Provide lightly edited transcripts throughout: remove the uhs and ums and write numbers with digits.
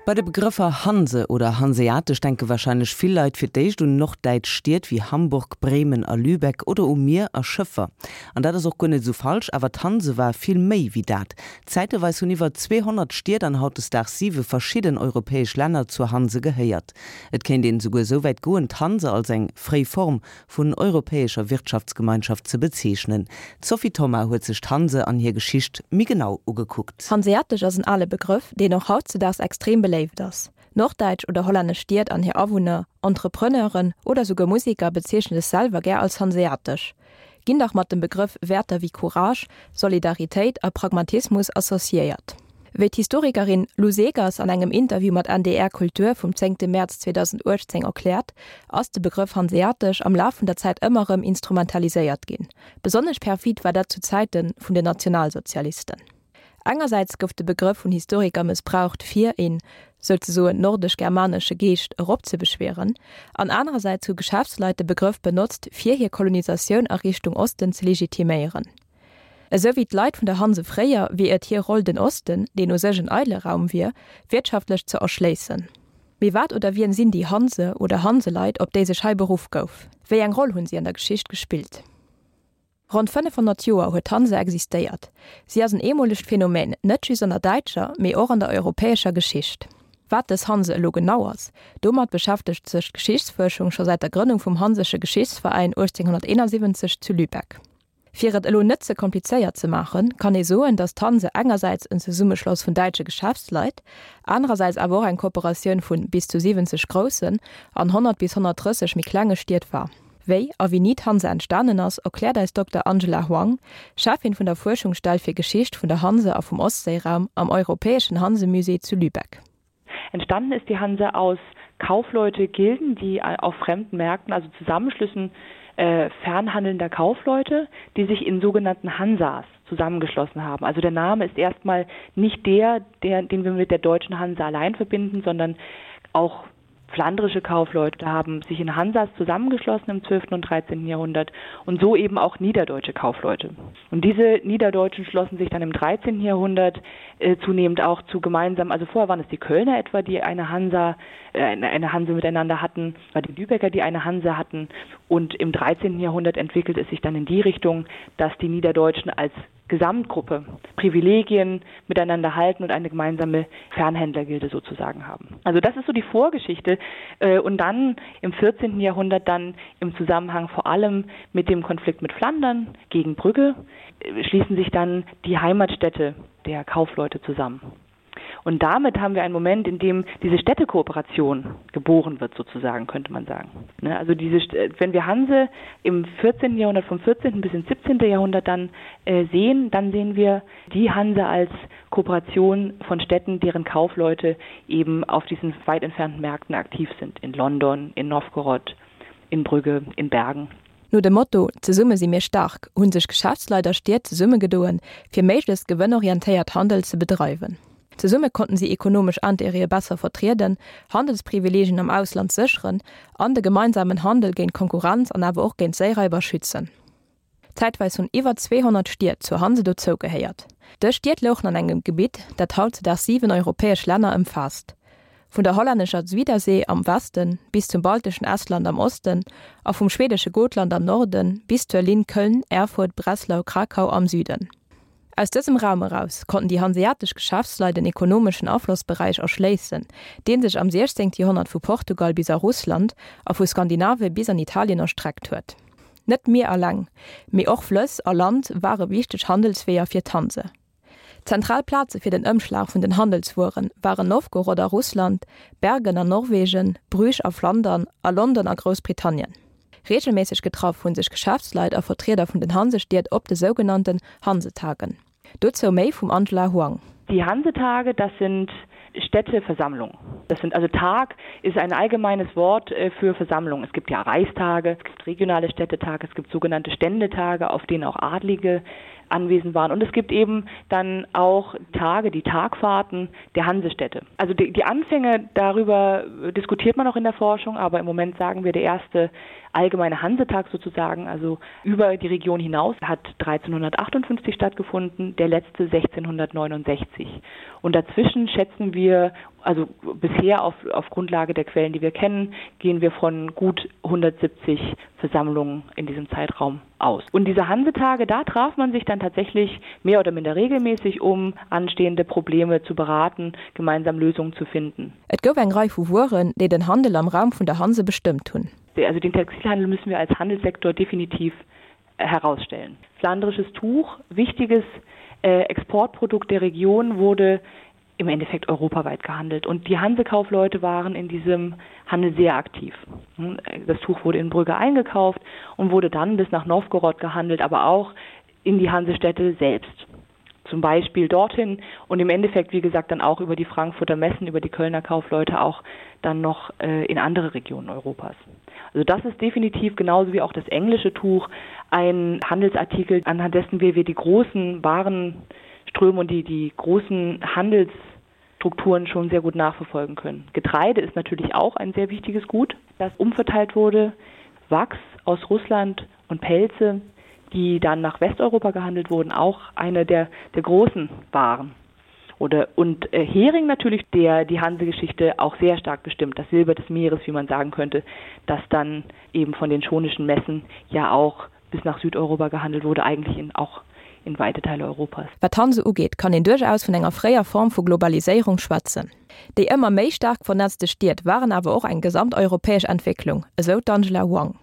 Bei de Begrëffer Hanse oder Hanseatesch denke warscheinlech vill Leit fir d'éischt un norddäitsch Stied wéi Hamburg, Bremen a Lübeck oder u Mier a Schëffer. An dat ass och guer net esou falsch, awer d'Hanse war vill méi wéi dat. Zäiteweis hunn iwwer 200 Stied an hautdesdaags siwe verschidden europäesch Länner zur Hanse gehéiert. Et kéint een esouguer esou wäit goen, d'Hanse als eng fréi Form vun europäescher Wirtschaftsgemeinschaft ze bezeechnen. D'Sophie Thoma huet sech d'Hanse an hir Geschicht méi genau ugekuckt. Hanseatesch ass en ale Begrëff, deen och hautzedaags extrem beléift ass. Norddäitsch oder hollännesch Stied an hir Awunner, Entrepreneuren oder souguer Museker bezeechne sech selwer gär als hanseatesch, ginn dach mat dem Begrëff Wäerter wéi Courage, Solidaritéit a Pragmatismus associéiert. Wéi d'Historikerin Lou Segers an engem Interview mat NDR Kultur vum zéngte Mäerz 2018 erkläert, ass de Begrëff hanseatesch am Laf vun der Zäit ëmmer erëm instrumentaliséiert ginn. Besonnesch perfid war dat zu Zäite vun den Nationalsozialisten. Engersäits gouf de Begrëff vun Historiker mëssbraucht fir een, souzesoen, nordesch-germanesche Geescht eropzebeschwieren, an anerersäits hu Geschäftsleit de Begrëff benotzt fir hir Kolonisatioun a Richtung Osten ze legitiméieren. Esou wéi d'Leit vun der Hanse fréier, wier et hir Roll den Osten, deen u sech en eidele Raum wier, wirtschaftlech ze erschléissen. Mee wat oder wien sinn déi Hanse oder Hanseleit, op déi sech hei beruff gouf? Wéi eng Roll hunn si an der Geschicht gespillt? Ronn 500 Joer huet d'Hanse existéiert. Si ass en eemolegt Phänomen, net just an der däitscher, mee och an der europäescher Geschicht. Wat dës Hanse elo genau ass, domat beschäftegt sech d'Geschichtsfuerschung scho säit der Grënnung vum Hansesche Geschichtsveräin 1871 zu Lübeck. Fir et elo net ze komplizéiert ze maachen, kann ee soen, datt d'Hanse engersäits en Zesummeschloss vun däitsche Geschäftsleit, anerersäits awer och eng Kooperatioun vu bis zu 70 groussen an 100 bis 130 méi klenge Stied war. Wéi a wéini d'Hanse entstanen ass, erkläert eis Dokter Angela Huang, Cheffin vun der Fuerschungsstell fir Geschicht vun der Hanse a vum Ostséiraum am Europäeschen Hansemusée zu Lübeck. Entstanden ist die Hanse aus Kaufleutegilden, die auf fremden Märkten, also Zusammenschlüssen äh, fernhandelnder Kaufleute, die sich in sogenannten Hansas zusammengeschlossen haben. Also der Name ist erstmal nicht der, der den wir mit der deutschen Hanse allein verbinden, sondern auch flandrische Kaufleute haben sich in Hansas zusammengeschlossen im 12. und 13. Jahrhundert und so eben auch niederdeutsche Kaufleute. Und diese Niederdeutschen schlossen sich dann im 13. Jahrhundert äh, zunehmend auch zu gemeinsam, also vorher waren es die Kölner etwa, die eine Hansa äh, eine, eine Hanse miteinander hatten, war die Lübecker, die eine Hanse hatten. Und im 13. Jahrhundert entwickelt es sich dann in die Richtung, dass die Niederdeutschen als Gesamtgruppe Privilegien miteinander halten und eine gemeinsame Fernhändlergilde sozusagen haben. Also das ist so die Vorgeschichte äh, und dann im 14. Jahrhundert dann im Zusammenhang vor allem mit dem Konflikt mit Flandern gegen Brügge äh, schließen sich dann die Heimatstädte der Kaufleute zusammen. Und damit haben wir einen Moment, in dem diese Städtekooperation geboren wird sozusagen, könnte man sagen. Ne? Also diese, äh, wenn wir Hanse im 14. Jahrhundert vom 14. bis ins 17. Jahrhundert dann äh, sehen, dann sehen wir die Hanse als Kooperation von Städten, deren Kaufleute eben auf diesen weit entfernten Märkten aktiv sind, in London, in Novgorod, in Brügge, in Bergen. No dem Motto Zesumme si mir staark hu sech Geschäftsleit a Stied zesummegedoen, fir méiglechst gewënnorientéiert Handel ze bedreiwen. Zesumme konnten si ekonomesch Intérêtë besser vertrieden, Handelsprivileegien am Ausland sécheren an de gemeinsamen Handel géint Konkurrenz an awer och géint Séiraiber schützen. Zäitweis hunn iwwer 200 Stied zur Hanse dozou gehéiert. Dës Stied louchen an engem Gebitt, dat hautzedaags 7 europäesch Länner ëmfaasst. Vun der hollännescher Zuidersee am Westen bis zum balteschen Estland am Osten a vum schwedesche Gotland am Norden bis zur Linn Köln, Erfurt, Breslau, Krakau am Süden. Aus dësem Raum eraus konnten déi hanseatesch Geschäftsleit en ekonomeschen Aflossberäich erschléissen, dee sech am 16. Joerhonnert vu Portugal bis a Russland a vu Skandinavie bis an Italien erstreckt huet. Net d'Mier eleng, mee och Flëss a Land ware wichteg Handelsweeër fir d'Hanse. Zentral Plaze fir den Ëmschlag vun den Handelswuere waren Nowgorod a Russland, Bergen an Norwegen, Bruges a Flandern a London a Groussbritannien. Reegelméisseg getraff hu sech Geschäftsleit a Vertrieder vun den Hansestied op de sougenannten Hansetagen. Dozou méi vum Angela Huang. Die Hansetage, das sind Städteversammlungen. Das sind also Tag ist ein allgemeines Wort äh, für Versammlung. Es gibt ja Reichstage, es gibt regionale Städtetage, es gibt sogenannte Ständetage, auf denen auch Adlige anwesend waren. Und es gibt eben dann auch Tage, die Tagfahrten der Hansestädte. Also die, die Anfänge darüber diskutiert man auch in der Forschung, aber im Moment sagen wir der erste allgemeine Hansetag sozusagen, also über die Region hinaus hat 1358 stattgefunden, der letzte 1669. Und dazwischen schätzen wir. Also bisher auf, auf Grundlage der Quellen, die wir kennen, gehen wir von gut 170 Versammlungen in diesem Zeitraum aus. Und diese Hansetage, da traf man sich dann tatsächlich mehr oder minder regelmäßig, um anstehende Probleme zu beraten, gemeinsam Lösungen zu finden. Et gouf eng Rei vu Wueren, déi den Handel am Raum vun der Hanse bestëmmt hunn. Also den Textilhandel müssen wir als Handelssektor definitiv herausstellen. Flandrisches Tuch, wichtiges äh, Exportprodukt der Region, wurde im Endeffekt europaweit gehandelt. Und die Hansekaufleute waren in diesem Handel sehr aktiv. Hm, das Tuch wurde in Brügge eingekauft und wurde dann bis nach Novgorod gehandelt, aber auch in die Hansestädte selbst. Zum Beispiel dorthin und im Endeffekt, wie gesagt, dann auch über die Frankfurter Messen, über die Kölner Kaufleute auch dann noch äh, in andere Regionen Europas. Also das ist definitiv genauso wie auch das englische Tuch ein Handelsartikel, anhand dessen wir, wir die großen Warenströme und die, die großen Handelsstrukturen schon sehr gut nachverfolgen können. Getreide ist natürlich auch ein sehr wichtiges Gut, das umverteilt wurde. Wachs aus Russland und Pelze, die dann nach Westeuropa gehandelt wurden, auch eine der, der großen Waren. Oder, und äh, Hering natürlich, der die Hansegeschichte auch sehr stark bestimmt, das Silber des Meeres, wie man sagen könnte, das dann eben von den schonischen Messen ja auch bis nach Südeuropa gehandelt wurde, eigentlich in, auch in weite Teile Europas. Wat d'Hanse ugeet, kann een duerchaus vun enger fréier Form vu Globaliséierung schwätzen. Déi ëmmer méi staark vernetzte Stied waren awer och eng gesamteuropäesch Entwécklung, esou d'Angela Huang.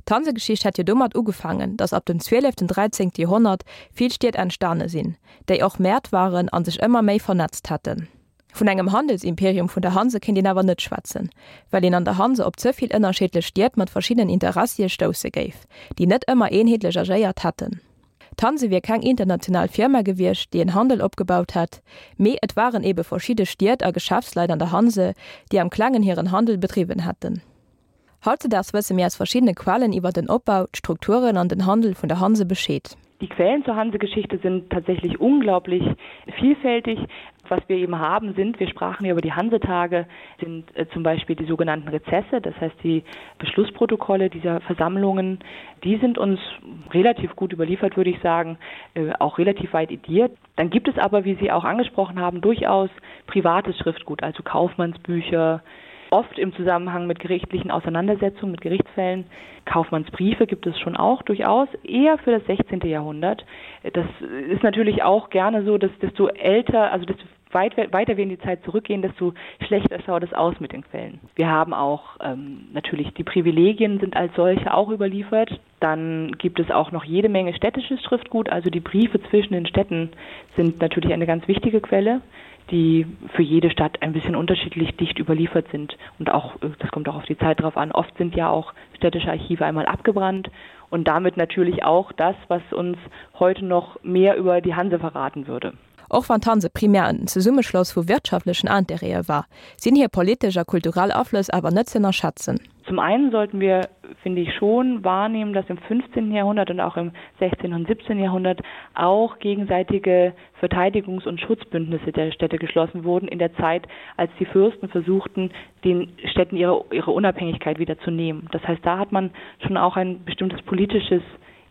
D'Hansegeschicht hätt jo domat ugefaangen, datt ab dem zwieleften, dräizéngte Joerhonnert vill Stied entstane sinn, déi och Mäert waren a sech ëmmer méi vernetzt hätten. Vun engem Handelsimperium vun der Hanse kéint een awer net schwätzen, well een an der Hanse op ze vill ënnerscheedlech Stied mat verschiddenen Interessie stousse géif, déi net ëmmer eenheetlech agéiert hätten. D'Hanse wier keng international Firma gewiescht, déi en Handel opgebaut hätt, mee et waren ebe verschidde Stied a Geschäftsleit an der Hanse, déi am Klengen hiren Handel bedriwwen hätten. Hautzedaags wësse mir aus verschiddene Quellen iwwer den Opbau, d'Strukturen an den Handel vun der Hanse Bescheed. Die Quellen zur Hansegeschichte sind tatsächlich unglaublich vielfältig. Was wir eben haben sind, wir sprachen ja über die Hansetage, sind äh, zum Beispiel die sogenannten Rezesse, das heißt die Beschlussprotokolle dieser Versammlungen, die sind uns relativ gut überliefert, würde ich sagen, äh, auch relativ weit ediert. Dann gibt es aber, wie Sie auch angesprochen haben, durchaus privates Schriftgut, also Kaufmannsbücher, oft im Zusammenhang mit gerichtlichen Auseinandersetzungen, mit Gerichtsfällen. Kaufmannsbriefe gibt es schon auch durchaus, eher für das 16. Jahrhundert. Das ist natürlich auch gerne so, dass desto älter, also desto weit, weiter wir in die Zeit zurückgehen, desto schlechter schaut es aus mit den Quellen. Wir haben auch ähm, natürlich die Privilegien sind als solche auch überliefert. Dann gibt es auch noch jede Menge städtisches Schriftgut, also die Briefe zwischen den Städten sind natürlich eine ganz wichtige Quelle die für jede Stadt ein bisschen unterschiedlich dicht überliefert sind und auch äh, das kommt auch auf die Zeit drauf an. Oft sind ja auch städtische Archive einmal abgebrannt und damit natürlich auch das, was uns heute noch mehr über die Hanse verraten würde. Och wann d'Hanse primär en Zesummeschloss vu wirtschaftlechen Intérêtë war, sinn hir politesch a kulturell Aflëss awer net z'ënnerschätzen. Zum einen sollten wir, finde ich, schon wahrnehmen, dass im 15. Jahrhundert und auch im 16. und 17. Jahrhundert auch gegenseitige Verteidigungs- und Schutzbündnisse der Städte geschlossen wurden in der Zeit, als die Fürsten versuchten, den Städten ihre, ihre Unabhängigkeit wieder zu nehmen. Das heißt, da hat man schon auch ein bestimmtes politisches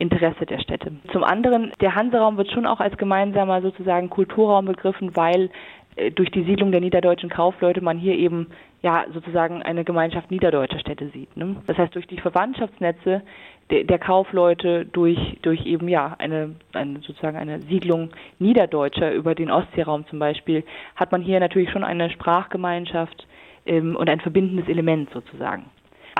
Interesse der Städte. Zum anderen, der Hanseraum wird schon auch als gemeinsamer sozusagen Kulturraum begriffen, weil äh, durch die Siedlung der niederdeutschen Kaufleute man hier eben ja sozusagen eine Gemeinschaft niederdeutscher Städte sieht. Ne? Das heißt durch die Verwandtschaftsnetze der, der Kaufleute durch, durch eben ja eine, eine sozusagen eine Siedlung niederdeutscher über den Ostseeraum zum Beispiel hat man hier natürlich schon eine Sprachgemeinschaft ähm, und ein verbindendes Element sozusagen.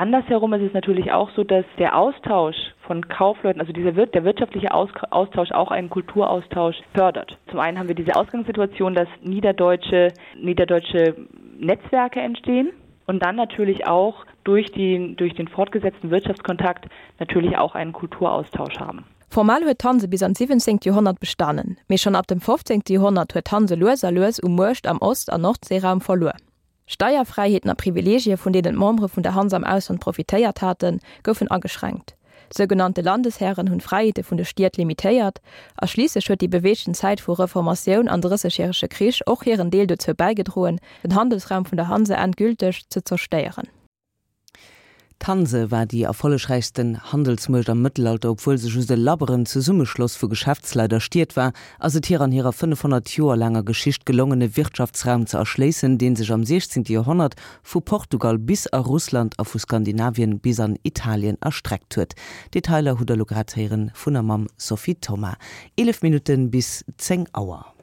Andersherum ist es natürlich auch so, dass der Austausch von Kaufleuten, also dieser wird der wirtschaftliche Aus Austausch auch einen Kulturaustausch fördert. Zum einen haben wir diese Ausgangssituation, dass niederdeutsche, niederdeutsche Netzwerke entstehen und dann natürlich auch durch, die, durch den fortgesetzten Wirtschaftskontakt natürlich auch einen Kulturaustausch haben. Formal huet d'Hanse bis an d'siwwenzengt Joerhonnert bestanen, mee schonn ab dem fofzéngte Joerhonnert huet d'Hanse lues a lues u Muecht am Ost an Nordseeraum verluer. Steierfräiheeten a Privileegie vun deenen d'Membere vun der Hanse am Ausland profitéiert haten, goufen ageschränkt. Sougenannte Landeshären hunn d'Fräiheete vun de Stied limitéiert, a schliisslech huet déi beweegten Zäit vu Reformatioun an Drëssegjärege Krich och hiren Deel dozou bäigedroen, den Handelsraum vun der Hanse endgülteg ze zerstéieren. D'Hanse war déi erfollegräichsten Handelsmuecht am Mëttelalter. Obwuel se just e labberen Zesummeschloss vu Geschäftsleit a Stied war, ass et hir an hirer 500 Joer laanger Geschicht gelongen, e Wirtschaftsraum ze erschléissen, dee sech am 16. Joerhonnert vu Portugal bis a Russland a vu Skandinavien bis an Italien erstreckt huet. Detailer hutt der elo grad héieren vun a mam Sophie Thoma. 11 Minutten bis 10 Auer.